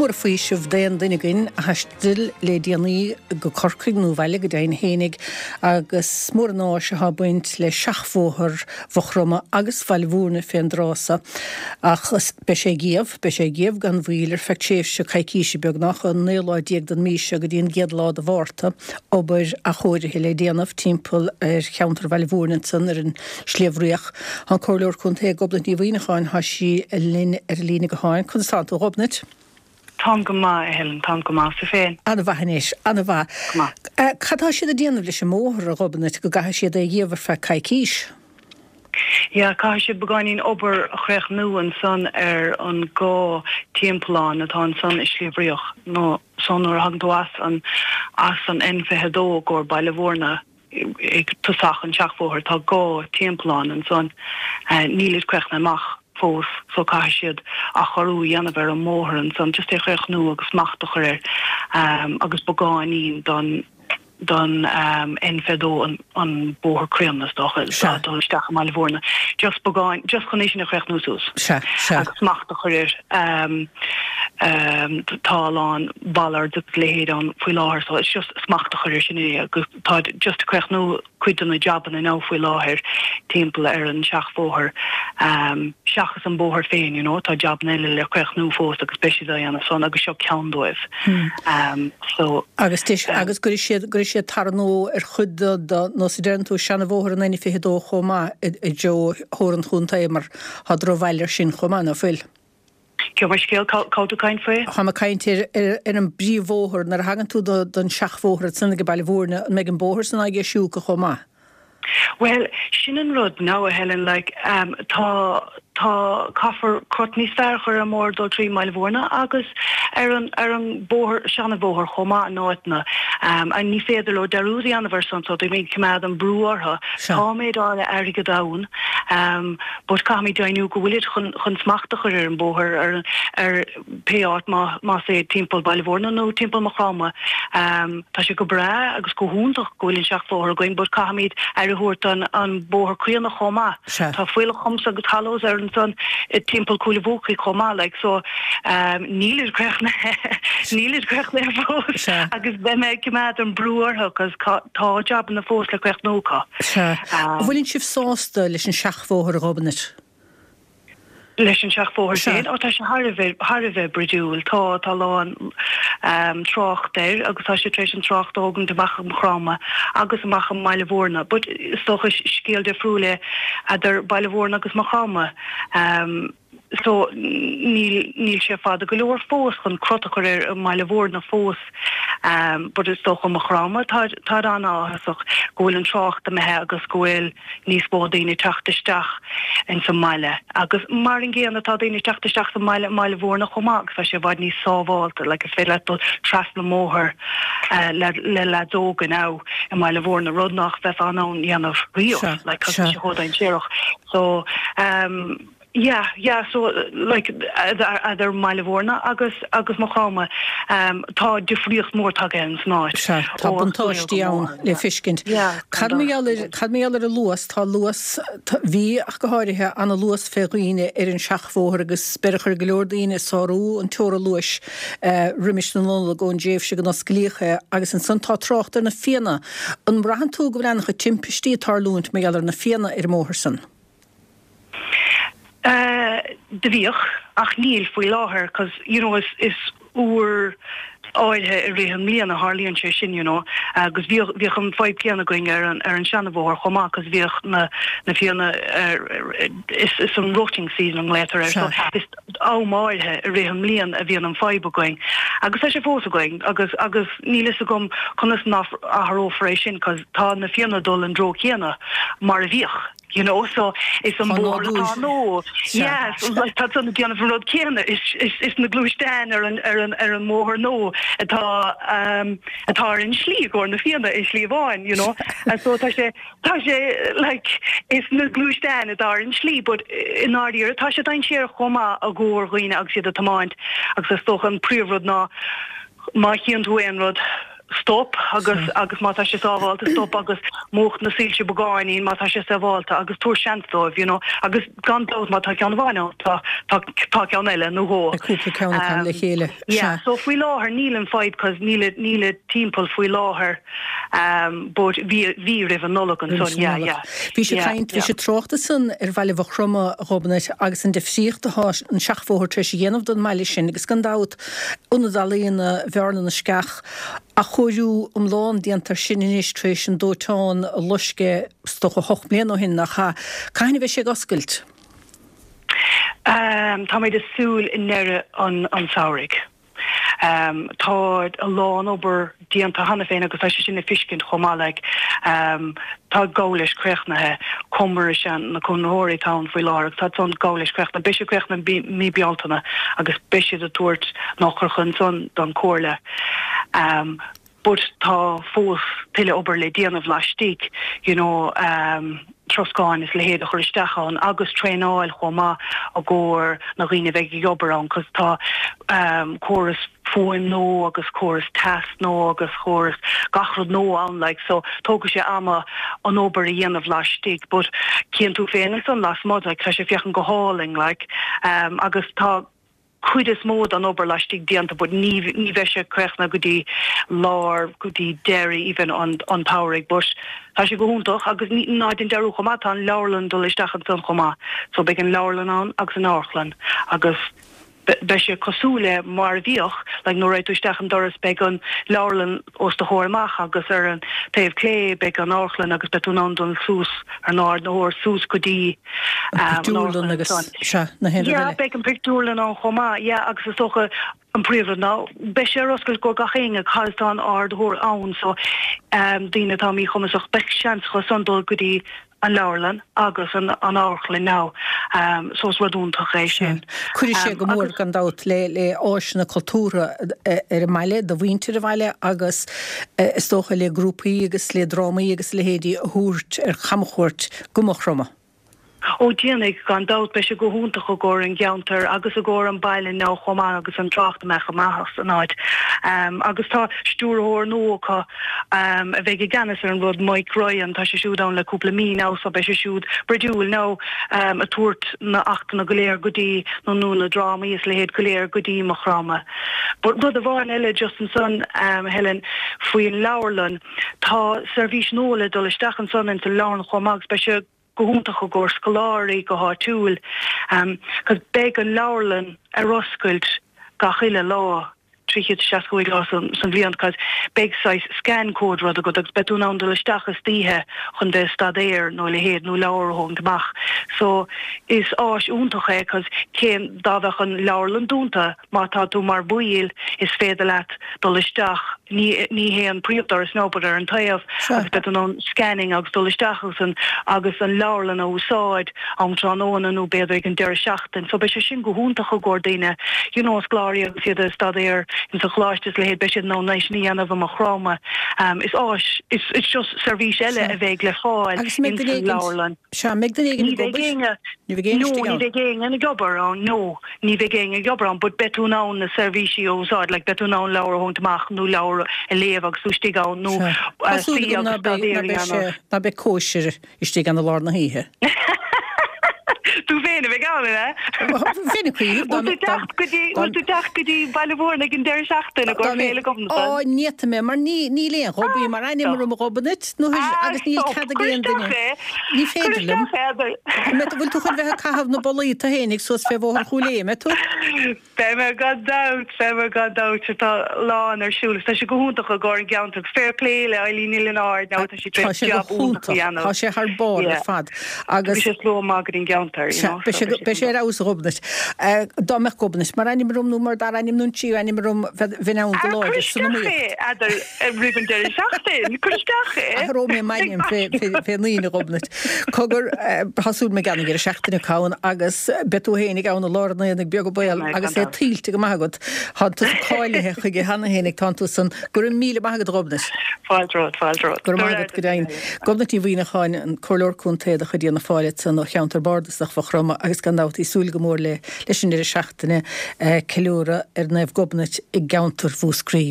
Mór an faoiseamh d'aon duine againn a thaistil le déanaí go Corcaigh nó abhaile go deimhin fhéinig agus mór an áis atá ag baint le seachbhóthar Mhaigh Chromtha agus Bhaile Mhúirne fén dtráth so. Ach beidh sé ag iamh, beidh sé ag iamh gan mhoill ar feadh tréimhse coicíse beagnach, ón naoú lá déag den mhí seo go dtí an gcéad lá de Mhárta, obair athchóirithe le déanamh timpeall ar cheantar Bhaile Mhúirne ansan ar an Sliabh Riach. Tá an Comhairleoir Contae Gobnait Ní Mhuimhneacháin, tá sí linn ar an líne gutháin. Conas tánn tú, a Ghobnait? Táim go maith, a Helen, táim go maith. Is tú féin? An-mhaith anois, an-mhaith. Go maith. Cad tá siad ag déanamh leis an mbóthar, a Ghobnait, go gcaithfidh siad é a dhíobh ar feadh coicís? Yeah, caithfidh siad beagáinín obair a chríochnú ansan ar an dhá timpeallán atá ansan i Sliabh Riach, nó so nuair a thagann tú as an, as an N22 i gcomhair Baile Mhúirne, ag tosach an tseachbhóthair tá dhá timpeallán ansan. Nílid críochnaithe amach fós so caithfidh siad athchóiriú a dhéanamh ar an mbóthar ansan just é a chríochnú agus smacht a chur air agus beagáinín don don N22 an bóthar críonna is dócha Sea. dul isteach i mBaile Mhúirne just beagán just chun é sin a chríochnú suas Sea, sea. agus smacht a chur air. Tá a lán bollards agus a leithéid ann faoi láthair so it's just smacht a chur air sin é agus táid just ag críochnú cuid de na jabanna now faoi láthair timpeall ar an seachbhóthar seachas an bóthar féin you know tá jabanna eile le críochnú fós agus beidh siad á dhéanamh san agus seo ceann dóibh so. Agus deis agus gcuirfidh siad gcuirfidh siad tar nua ar chuid de de nós a deireann tú seana-bhóthar an N22 chomh maith i dtreo Thoir an Chontae mar tá drochbhail air sin chomh maith ná fuil? Gabh mo leithscéal, cá bhfuil tú ag caint faoi? Táim ag caint ar an bpríomhbhóthar. Nuair a thagann tú don seachbhóthar ansan ag Baile Mhúirne, an mbeidh an bóthar san á dheisiú acu chomh maith? Bhuel, sin an rud now, a Helen, like, tá, tá, caithfear crot níos fearr a chur ar an mbóthar dul trí mBaile Mhúirne agus ar an, ar an bóthar, seana-bhóthar chomh maith in áiteanna. And ní féidir leo dearúd a dhéanamh ar san so tá mé ag coimeád an brú orthu. Sea. Tá méid áirithe airgead ann. But caithfimid deimhniú go bhfuilid chun chun smacht a chur ar an bóthar ar ar pé áit má más é timpeall Baile Mhúirne nó timpeall Maigh Chromtha. Tá sé go breá agus go hiontach go bhfuil an seachbhóthar againn but caithfimid aire a thabhairt don an bóthar críonna chomh maith. Sea. Tá fuílleach humps agus hollows ar ansan timpeall Cúil a' Bhuacaigh chomh maith like so nílid críochnaithe nílid críochnaithe fós Sea. agus beidh mé ag coimeád an brú orthu 'cause tá jabanna fós le críochnú acu. Sea. An bhfuileann sibh sásta leis an seachbhóthar, a Ghobnait? Leis an seachbhóthar Sea. féin? Ó, tá sé thar a bheith, thar a bheith bruidiúil. Tá, tá a lán trácht air agus tá sé tar éis an trácht a thógaint amach i Maigh Chromtha agus amach i mBaile Mhúirne. But is dócha scéal difriúil é eadar Baile Mhúirne agus Maigh Chromtha. So níl, níl sé fada go leor fós chun crot a chur air i mBaile Mhúirne fós but is dócha Maigh Chromtha táid, táid an-áthasach go bhfuil an trácht imithe agus go bhfuil níos mó daoine ag teacht isteach ins an mbaile agus mar an gcéanna tá daoine ag teacht isteach sa mbaile i mBaile Mhúirne chomh maith agus tá sé i bhfad níos sábhálta like is féidir leat dul trasna an mbóthar le le leaids óga now i mBaile Mhúirne rud nach bheifeá in ann dhéanamh riamh Sea, like 'cause tá sea. sé chomh dainséarach so Yeah, yeah, so like eadar mBaile Mhúirne agus agus Maigh Chromtha tá difríocht mór tagtha ins an áit. Sea, tá buntáistí ann le feiscint. Yeah, Cad mar gheall ar, cad mar gheall ar an luas, tá luas, bhí ach go háirithe, ana luas fé dhaoine ar an seachbhóthar agus beireadh ar go leor daoine sárú an teora luais roimis na Nollag ón dtréimhse go n-osclaíodh é agus ansan tá trácht ar na fianna. An mbraitheann tú go bhfuil ana chuid timpistí ag tarlúint mar gheall ar na fianna ar an mbóthar san? Do bhíodh, ach níl faoi láthair 'cause you know is is uair áirithe i rith an mbliana a tharlaíonn sé sin you know agus bhíodh bhíodh an fadhb céanna againn ar an ar an seanabhóthar chomh maith 'cause bhíodh na na fianna ar is is an rutting season a nglaotar air so is am áirithe i rith an mbliain a bhíonn an fadhb againn agus tá sé fós againn agus agus níl fhios agam conas nach athrófar é sin 'cause tá na fianna ag dul an dtreo céanna mar a bhíodh. You know so is an Tá bóthar nádúr. atá nó Sea. yeah so like tá san ag déanamh an rud céanna is is is na gluaisteáin ar an ar an ar an mbóthar nó atá um atá ar an slí i gcomhair na fianna i slí amháin you know and so tá sé tá sé like is na gluaisteáin atá ar an slí but i ndáiríre tá sé dainséarach chomh maith i gcomhair dhaoine agus iad ag tiomáint agus is dócha an príomhrud ná má chíonn tú aon rud. stop agus agus má tá sé sábhálta stop agus múch na soilse beagáinín má tá sé sábhálta agus tabhair seans dóibh you know agus gan dabht má tá ceann amháin ann tá tá tá ceann eile nó dhó. Beidh cúpla ceann acu le chéile. Yeah so faoi láthair níl an fadhb cause níl níl timpeall faoi láthair um but bhí bhí roimh an Nollaig ansan yeah yeah. Bhís ag caint, bhís ag trácht ansan ar bhaile Mhaigh Chromtha, a Ghobnait, agus an difríocht atá an seachbhóthar tar éis a dhéanamh don mbaile sin agus gan dabht Ionad Ealaíona Bhearna na Sceach, athchóiriú iomlán déanta air sin anois tar éis an dóiteán a loisc é is dócha 8 mbliana ó shin, nach ea? Cathain a bheidh sé ag oscailt? Táimid ag súil i ndeireadh an tsamhraidh. Tá a lán obair déanta cheana féin agus tá sé sin le fiscint chomh maith like. Tá ag gabháil leis críochnaithe, Comar is ea na conraitheoirí atá ann faoi láthair agus tá san ag gabháil leis críochnaithe. Beidh sé críochnaithe mí Bealtaine agus beidh siad ag tabhairt na heochracha ansan don Comhairle. But tá fós tuilleadh obair le déanamh laistigh, you know, troscáin is a leithéid a chur isteach ann agus traenáil chomh maith i gcomhair na dhaoine a bheidh ag obair ann cos tá córas fuaim nua agus córas teas nua agus córas gach rud nua ann like so tógfaidh sé ama an obair a dhéanamh laistigh but cíonn tú féin ansan lasmuigh like tá sé ag féachaint go hálainn like agus tá cuid is mó den obair laistigh déanta but ní ní bheidh sé críochnaithe go dtí lár go dtí deireadh even an an tsamhraidh but tá sé go hiontach agus ní ná déan dearúd chomh maith tá an leabharlann dul isteach ansan chomh maith so beidh an leabharlann ann agus an amharclann agus beidh sé cosúil le mar a bhíodh like nuair a raghaidh tú isteach an doras beidh an leabharlann os do chomhair amach agus ar an taobh clé beidh an amharclann agus beidh tú in ann dul suas ar an ardaitheoir suas go dtí An pictiúrlann agus, sea, na haon rud eile. Yeah, beidh an pictiúrlann ann chomh maith, yeah, agus is dócha an príomhrud ná beidh sé ar oscailt go gach éinne cos tá an ardaitheoir ann so daoine atá míchumasach beidh seans acu san dul go dtí an leabharlann agus an amharclann now so is rud iontach é sin. Cuirfidh sé go mór gan dabht le le áiseanna cultúrtha ar an mbaile, do mhuintir an bhaile agus is dócha le grúpaí agus le drámaí agus a leithéidí a thabhairt ar chamchuairt go Maigh Chromtha. Ó déanfaidh, gan dabht. Beidh sé go hiontach i gcomhair an gceantair agus i gcomhair an baile now chomh maith agus an trácht a mbeadh amach as an áit. Agus tá stiúrthóir nua acu a bheidh i gceannas ar an rud, Mike Ryan, tá sé siúd ann le cúpla mí now so beidh sé siúd bruidiúil now ag tabhairt na achtanna go léir go dtí nó nó na drámaí is a leithéid go léir go dtí Maigh Chromtha. But rud amháin eile just ansan Helen faoin leabharlann, Tá seirbhís nua le dul isteach ansan ins an leabharlann chomh maith agus beidh sé go hiontach i gcomhair scoláirí go háitiúil cos beidh an leabharlann ar oscailt gach uile lá 365 lá san bhliain cos beidh saghas scan code rud agat agus beidh tú in ann dul isteach istoíche chun bheith ag staidéar nó a leithéid nó leabhar a thógaint amach so is áis iontach é cos cén dá bheadh an leabharlann dúnta Má tá tú mar bhaill, is féidir leat dul isteach, ní ní hé an príomhdoras no, but ar an taobh, agus beidh tú in ann scanning agus dul isteach agus an agus an leabharlann a úsáid am tráthnóna nó b'fhéidir ag an deireadh seachtain. So beidh sé sin go hiontach i gcomhair daoine, you know, scoláirí agus iad ag staidéar ins an choláiste is a leithéid, beidh siad in ann é sin a dhéanamh i Maigh Chromtha. Is áis, is it's just seirbhís eile a bheidh le fáil ins an leabharlann. Sea, an mbeidh duine éigin ag obair? Ní bheidh éinne istigh ann. No, ní bheidh éinne ag obair ann, no. Ní bheidh éinne ag obair ann but beidh tú in ann na seirbhísí a úsáid, like beidh tú in ann leabhar a thógaint amach nó leabhar a léamh agus tú istigh ann nó Tá súil suí agam ná agus beidh, staidéar ná a beidh sé, dhéanamh. ná beidh cóisir istigh ann i lár na hoíche. Tú féin a bheidh ann, an ea? Bheinn ag cuimhneamh dá Bhfuil tú mbeadh, dá, teacht go dtí, dá, bhfuil tú teacht go dtí Baile Mhúirne ag an deireadh seachtaine dá i gcomhair mbeadh, Féile Ghobnatan? á, ní fhéadfaidh mé mar ní, níl aon Ghobaí mar ainm Stop. orm a Ghobnait, nó Ah, agus níl stop. cead ag Cuir aon duine. isteach é. Ní Cuir féidir liom. isteach é, Heather. An mbeidh tú, bhfuil tú chun bheith ag caitheamh na bolaí tú fhéinig suas fé Bhóthar Chúil Aodha, an mbeidh tú? Beidh mé gan dabht, beidh mé gan dabht. Tá a lán ar siúl agus tá sé go hiontach i gcomhair an gceantar agus fair play le Eileen Ní Lionáird now tá sí tar Tá éis sé go jab iontach a hiontach, dhéanamh. tá sé thar barr ar Yeah. fad agus. Beidh sé slua maith go dtí an gceantar, you Sea, know, beidh so sé, beidh sé beidh sé ar iontach. fheabhas a Ghobnait. Dá mbeadh Gobnait mar ainm orm nó mar dara ainm nó an tríú ainm orm bheinn bheinn ann go Ah, cuir láidir san isteach iomaíocht. é, Heather. Roimh an deireadh seachtaine, cuir isteach é. Athróidh mé m'ainm fén Aoine, a Ghobnait. Cogar, tá súil agam an deireadh seachtaine ann agus beidh tú fhéinig ann i lár an aonaigh beag an baol agus é tuillte go maith agat. Tá tusa cáilithe chuige cheana fhéinig, tánn tú san. Go raibh míle maith agat, a Ghobnait. Fáilte romhat, fáilte romhat. Go raibh maith agat, go deimhin. Gobnait Ní Mhuimhneacháin, an Comhairleoir Contae de chuid Fhianna Fáil ansan ó cheantar bardasach Mhaigh Chromtha agus gan dabht í súil go mór le leis an deireadh seachtaine ceiliúradh ar Naomh Gobnait i gceantar Mhúscraí.